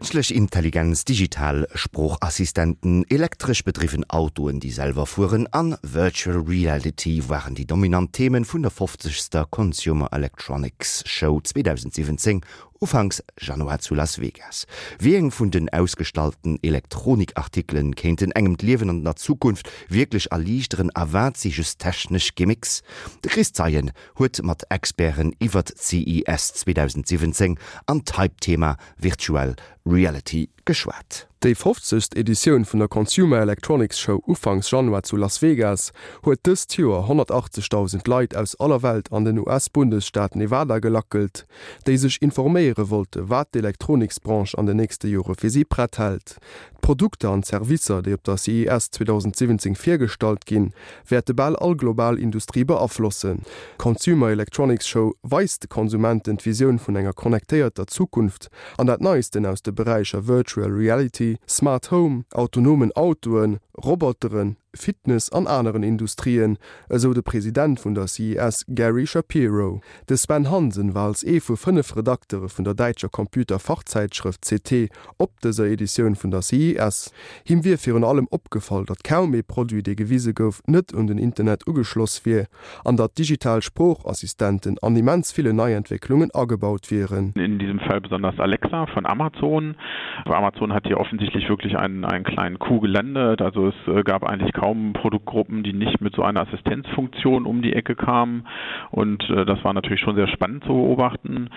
Kënschtlech Intelligenz, digital Sproochassistenten, elektresch bedriwwen Autoen, déi selwer fueren, an Virtual Reality waren déi dominant Themen vun der fofzegster Consumer Electronics Show 2017 Ufanks Januar zu Las Vegas. Wéi eng vun den ausgestallten Elektronikartikelen kéinten engem d'Liewen an der Zukunft wierklech erliichteren a wat si just technesch Gimmicks? De Chris Zeien huet mat Experten iwwert d'CES 2017 an d'Hype-Thema Virtual Reality geschwat. Déi fofzegst Editioun vun der Consumer Electronics Show ufanks Januar zu Las Vegas huet dëst Joer 180.000 Leit aus aller Welt an den US-Bundesstaat Nevada gelackelt, déi sech informéiere wollte wat d'Elektroniksbranche an den nächste Jore fir si prett hält. D'Produkter an d'Servicer, déi op der CES 2017 virgestallt ginn, wäerte bal all global Industrie beaflossen. D'Consumer Electronics Show weist de Konsumenten d'Visioun vun enger connectéierter Zukunft an dat Neisten aus de Beräicher Virtual Reality, Smart Home, autonomen Autoen, Roboteren, Fitness an aneren Industrien, esou de President vun der CES Gary Shapiro. De Sven Hansen war als ee vu 5 Redaktere vun der däitscher Computer-Fachzäitschrëft c't op dëser Editioun vun der CES. Him wier virun allem opgefall, datt kaum ee Produit, dee gewise gouf, net un den Internet ugeschloss wier an datt digital Sproochassistenten an immens ville Neientwécklungen agebaut wieren. In diesem Fall besonders Alexa von Amazon. Amazon hat hier offensichtlich wirklich einen, einen kleinen Coup gelandet. Also es gab eigentlich kaum Produktgruppen, die nicht mit so einer Assistenzfunktion um die Ecke kamen. Und das war natürlich schon sehr spannend zu beobachten.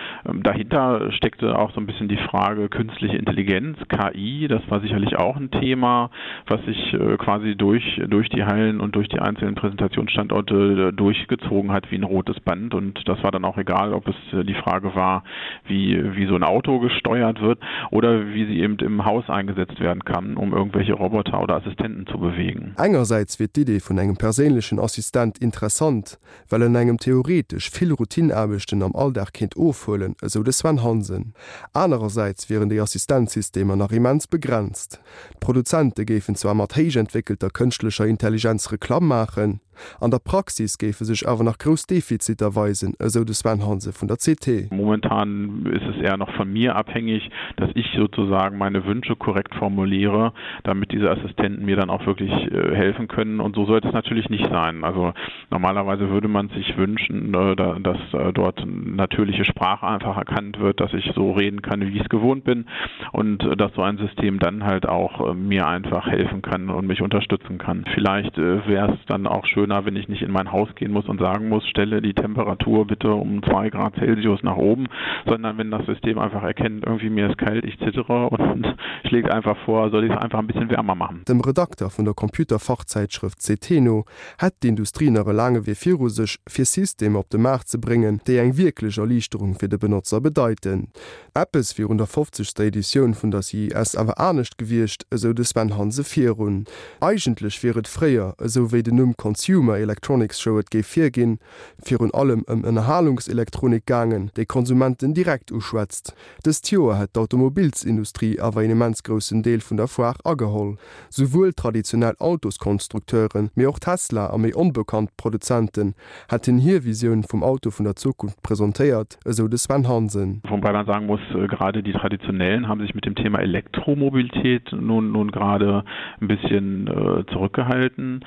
Dahinter steckte auch so ein bisschen die Frage künstliche Intelligenz, KI, das war sicherlich auch ein Thema, was sich quasi durch, durch die Hallen und durch die einzelnen Präsentationsstandorte durchgezogen hat wie ein rotes Band. Und das war dann auch egal, ob es die Frage war, wie, wie so ein Auto gesteuert wird oder wie sie eben im Haus eingesetzt werden kann, um irgendwelche Roboter oder Assistenten zu bewegen. Engersäits wier d'Idee vun engem perséinlechen Assistent interessant, well en engem theoretesch vill Routineaarbechten am Alldag kéint ofhuelen, esou de Sven Hansen. Anerersäits wieren déi Assistenzsystemer nach immens begrenzt. D'Produzente géifen zwar mat héich entwéckelter kënschtlecher Intelligenz Reklamm maachen, an der Praxis géife sech awer nach grouss Defiziter weisen, esou de Sven Hansen vun der CT. Momentan ist es eher noch von mir abhängig, dass ich sozusagen meine Wünsche korrekt formuliere, damit diese Assistenten mir dann auch wirklich helfen können. Und so sollte es natürlich nicht sein. Also Normalerweise würde man sich wünschen, dass dort natürliche Sprache einfach erkannt wird, dass ich so reden kann, wie ich es gewohnt bin und dass so ein System dann halt auch mir einfach helfen kann und mich unterstützen kann. Vielleicht wäre es dann auch schöner, wenn ich nicht in mein Haus gehen muss und sagen muss, stelle die Temperatur bitte um 2 Grad Celsius nach oben, sondern wenn das System einfach erkennt, irgendwie mir ist kalt, ich zittere und schlägt einfach vor, soll ich es einfach ein bisschen wärmer machen. Dem Redakter vun der Computerfachzäitschrëft c't no hätt d'Industrie nach e laange Wee viru sech, fir Systemer op de Maart ze bréngen, déi eng wierklech Erliichterung fir de Benotzer bedeiten. Eppes wier un der fofzegster Editioun vun der CES awer anescht gewiescht, esou de Sven Hanse virun. Eigentlech wier et fréier, esou wéi den Numm Consumer Electronics Show et géif virginn, virun allem ëm Ënnerhalungselektronik gaangen, déi Konsumenten direkt uschwätzt. Dëst Joer hätt d'Automobilsindustrie awer een immens groussen Deel vun der Foire ageholl. Souwuel traditionell Autoskonstrukteuren, mee och Tesla a méi onbekannt Produzenten hätten hir Visioun vum Auto vun der Zukunft presentéiert, esou de Sven Hansen. Wobei man sagen muss, gerade die traditionellen haben sich mit dem Thema Elektromobilität nun nun gerade ein bisschen zurückgehalten.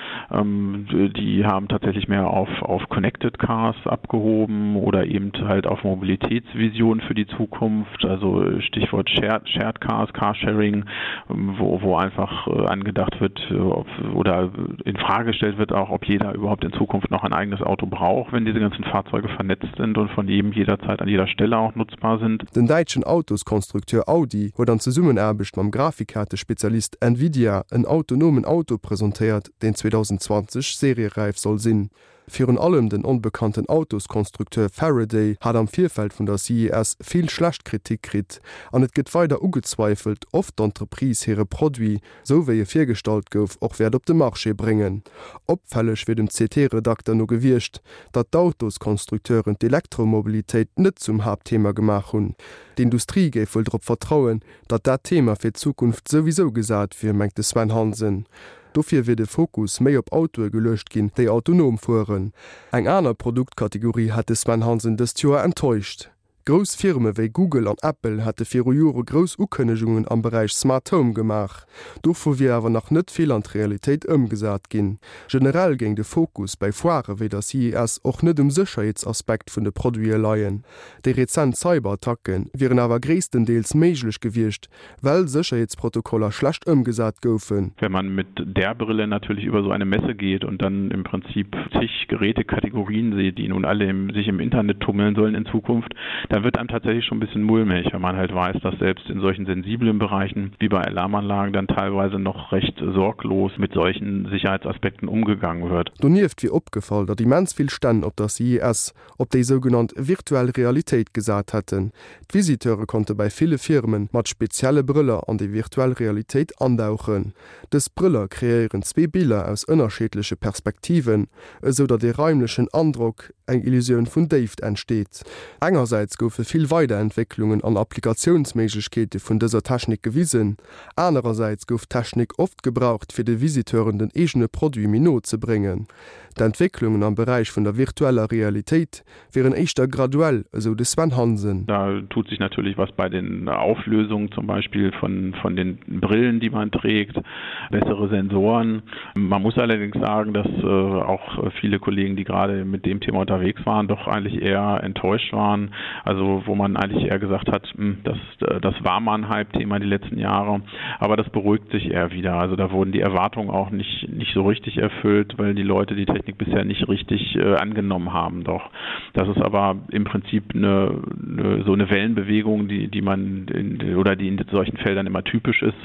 Die haben tatsächlich mehr auf auf Connected Cars abgehoben oder eben halt auf Mobilitätsvisionen für die Zukunft, also Stichwort Shared, Shared Cars, Carsharing, wo, wo einfach angedacht wird ob, oder in Frage gestellt wird auch, ob jeder überhaupt in Zukunft noch ein eigenes Auto braucht, wenn diese ganzen Fahrzeuge vernetzt sind und von jedem jederzeit an jeder Stelle auch nutzbar sind. Den däitschen Autoskonstrukteur Audi huet an Zesummenaarbecht mam Grafikkaartespezialist Nvidia en autonomen Auto presentéiert, deen 2020 serieräif soll sinn. Virun allem den onbekannten Autoskonstrukteur Faraday hat am Virfeld vun der CES vill schlecht Kritik kritt an et gëtt weider ugezweifelt, of d'Entreprise hire Produit, sou wéi e virgestallt gouf, och wäert op de Marché bréngen. Opfälleg wier dem CT-Redakter no gewiescht, datt d'Autoskonstrukteuren d'Elektromobilitéit net zum Haaptthema gemaach hunn. D'Industrie géif wuel drop vertrauen, datt dat Thema fir d'Zukunft souwisou gesat wier, mengt de Sven Hansen. Dofir wier de Fokus méi op Autoe geluecht ginn, déi autonom fueren. Eng aner Produktkategorie hätt de Sven Hansen dëst Joer enttäuscht. Grouss Firme wéi Google an Apple hätte viru Jore grouss Ukënnegungen am Beräich Smart Home gemaach. Dovu wier awer nach net vill an d'Realitéit ëmgesat ginn. Generell géing de Fokus bäi Foirë wéi der CES och net um Sécherheetsaspekt vun de Produite leien. Déi rezent Cyberattacke wieren awer gréisstendeels méiglech gewiescht, well Sécherheetsprotokoller schlecht ëmgesat goufen. Wenn man mit der Brille natürlich über so eine Messe geht und dann im Prinzip zig Gerätekategorien sieht, die nun alle im, sich im Internet tummeln sollen in Zukunft, dann wird einem tatsächlich schon ein bisschen mulmig, wenn man halt weiß, dass selbst in solchen sensiblen Bereichen wie bei Alarmanlagen dann teilweise noch recht sorglos mit solchen Sicherheitsaspekten umgegangen wird. Donieft wier opgefall, datt immens vill Stänn op der CES op déi sougenannt virtuell Realitéit gesat hätten. D'Visiteure konnte bäi ville Firme mat spezielle Brëller an déi virtuell Realitéit andauchen. Dës Brëller kreéieren zwee Biller aus ënnerscheedleche Perspektiven, esou datt ee raimlechen Androck, eng Illusioun vun Déift entsteet. Engersäits goufe vill Weiderentwécklungen an Applikatiounsméiglechkeete vun dëser Technik gewisen, anerersäits gouf d'Technik oft gebraucht fir de Visiteuren den eegene Produit méi no ze bréngen. D'Entwécklungen am Beräich vun der virtueller Realitéit wieren éischter graduell, esou de Sven Hansen. Da tut sich natürlich was bei den Auflösungen zum Beispiel von, von den Brillen, die man trägt, bessere Sensoren. Man muss allerdings sagen, dass äh, auch viele Kollegen, die gerade mit dem Thema unterwegs waren, doch eigentlich eher enttäuscht waren. Also wo man eigentlich eher gesagt hat, hm, das, äh, das war mal ein Hype-Thema die letzten Jahre, aber das beruhigt sich eher wieder. Also da wurden die Erwartungen auch nicht, nicht so richtig erfüllt, weil die Leute die Technik bisher nicht richtig äh, angenommen haben. Doch das ist aber im Prinzip eine, eine, so eine Wellenbewegung, die, die man in, oder die in solchen Feldern immer typisch ist,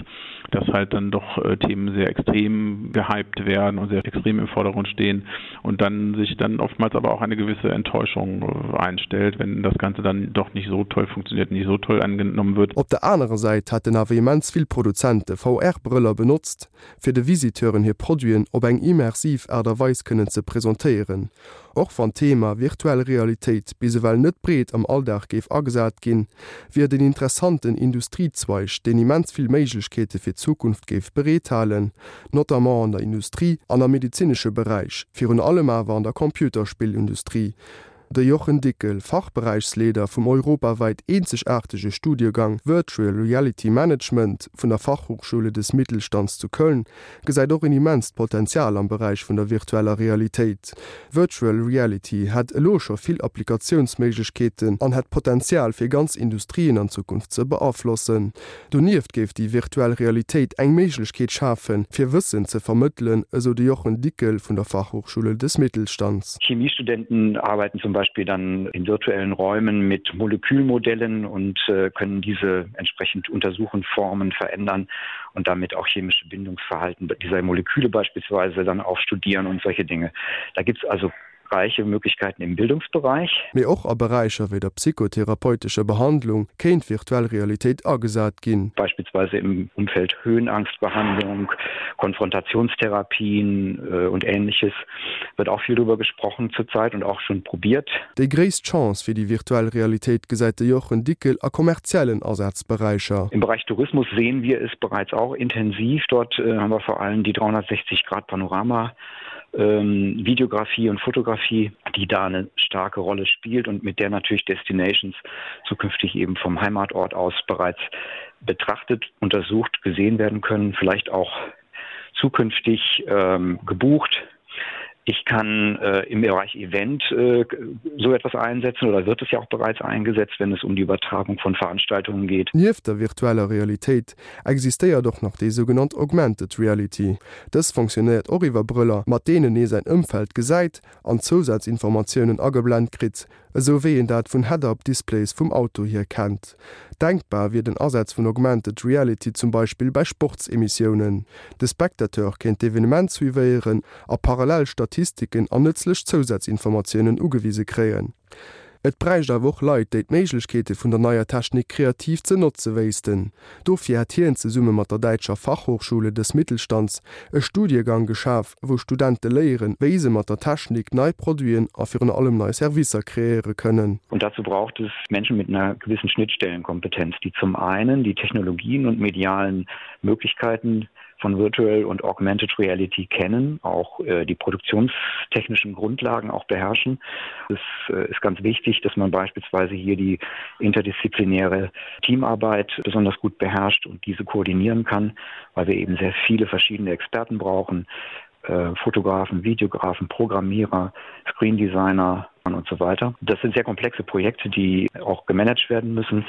dass halt dann doch äh, Themen sehr extrem gehypt werden und sehr extrem im Vordergrund stehen und dann sich dann oftmals aber auch eine gewisse Enttäuschung äh, einstellt, wenn das Ganze dann doch nicht so toll funktioniert, nicht so toll angenommen wird. Op der anerer Säit hätten awer immens vill Produzente VR-Brëller benotzt, fir de Visiteuren hir Produiten op eng immersiv Aart a Weis kënnen ze presentéieren. Och wann d'Thema virtuell Realitéit bis ewell net breet am Alldag géif agesat ginn, wier et en interessanten Industriezweig, deen immens vill Méiglechkeete fir d'Zukunft géif bereethalen, notamment an der Industrie an am medezinesche Beräich, virun allem awer an der Computerspillindustrie. De Jochen Dickel, Fachberäichsleeder vum europawäit eenzegaartege Studiegang Virtual Reality Management vun der Fachhochschule des Mittelstands zu Köln, gesäit och en immenst Potenzial am Beräich vun der virtueller Realitéit. Virtual Reality hätt elo scho vill Applikatiounsméiglechkeeten an hätt Potenzial fir ganz Industrien an Zukunft ze beaflossen. Donieft géif déi virtuell Realitéit eng Méiglechkeet schafen, fir Wëssen ze vermëttelen, esou de Jochen Dickel vun der Fachhochschule des Mittelstands. Chemiestudenten arbeiten zum Beispiel dann in virtuellen Räumen mit Molekülmodellen und äh, können diese entsprechend untersuchen, formen, verändern und damit auch chemische Bindungsverhalten dieser Moleküle beispielsweise dann auch studieren und solche Dinge. Da gibt es also reiche Möglichkeiten im Bildungsbereich. Mee och a Beräicher wéi der psychotherapeutescher Behandlung kéint virtuell Realitéit agesat ginn. Beispielsweise im Umfeld Höhenangstbehandlung, Konfrontationstherapien äh, und ähnliches wird auch viel darüber gesprochen zurzeit und auch schon probiert. Déi gréisst Chance fir déi virtuell Realitéit gesäit de Jochen Dickel a kommerziellen Asazberäicher. Im Bereich Tourismus sehen wir es bereits auch intensiv. Dort äh, haben wir vor allem die 360 Grad Panorama ähm, Videografie und Fotografie, die da eine starke Rolle spielt und mit der natürlich Destinations zukünftig eben vom Heimatort aus bereits betrachtet, untersucht, gesehen werden können, vielleicht auch zukünftig ähm, gebucht. Ich kann äh, im Bereich Event äh, so etwas einsetzen oder wird es ja auch bereits eingesetzt, wenn es um die Übertragung von Veranstaltungen geht. Nieft der virtueller Realitéit existéiert och nach déi sougenannt Augmented Reality. Dës fonctionnéiert och iwwer Brëller, mat deenen ee säin Ëmfeld gesäit an Zousazinformatiounen ageblent kritt, esou wéi een dat vun Head-Up-Displays vum Auto hier kennt. Denkbar wier den Asaz vun Augmented Reality zum Beispill bei Sportsemissiounen. De Spectateur kéint d'Evenement suivéieren a parallel Statistiken an nëtzlech Zousazinformatiounen ugewise kréien. Et bräicht awer och Leit, déi d'Méiglechkeete vun der neier Technik kreativ ze notze wéissten. Dofir hätt hien zesumme mat der däitscher Fachhochschule des Mittelstands e Studiegang geschaf, wou Studente léieren, wéi se mat der Technik nei Produiten a virun allem nei Servicer kreéiere kënnen. Und dazu braucht es Menschen mit einer gewissen Schnittstellenkompetenz, die zum einen die Technologien und medialen Möglichkeiten. von Virtual und Augmented Reality kennen, auch äh, die produktionstechnischen Grundlagen auch beherrschen. Es äh, ist ganz wichtig, dass man beispielsweise hier die interdisziplinäre Teamarbeit besonders gut beherrscht und diese koordinieren kann, weil wir eben sehr viele verschiedene Experten brauchen, äh, Fotografen, Videografen, Programmierer, Screendesigner und so weiter. Das sind sehr komplexe Projekte, die auch gemanagt werden müssen.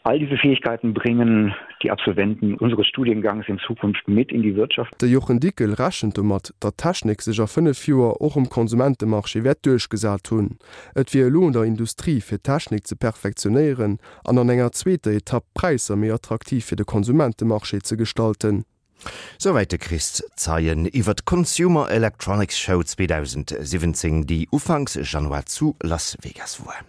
All diese Fähigkeiten bringen die Absolventen unseres Studiengangs in Zukunft mit in die Wirtschaft. De Jochen Dickel rechent domat, datt d'Technik sech a 5 Joer och um Konsumentemarché wäert duerchgesat hunn. Et wier elo un der Industrie, fir d'Technik ze perfektionéieren an an enger zweeter Etapp d'Präisser méi attraktiv fir de Konsumentemarché ze gestalten. Souwäit de Chris Zeien iwwer d'Consumer Electronics Show 2017, déi ufanks Januar zu Las Vegas woar.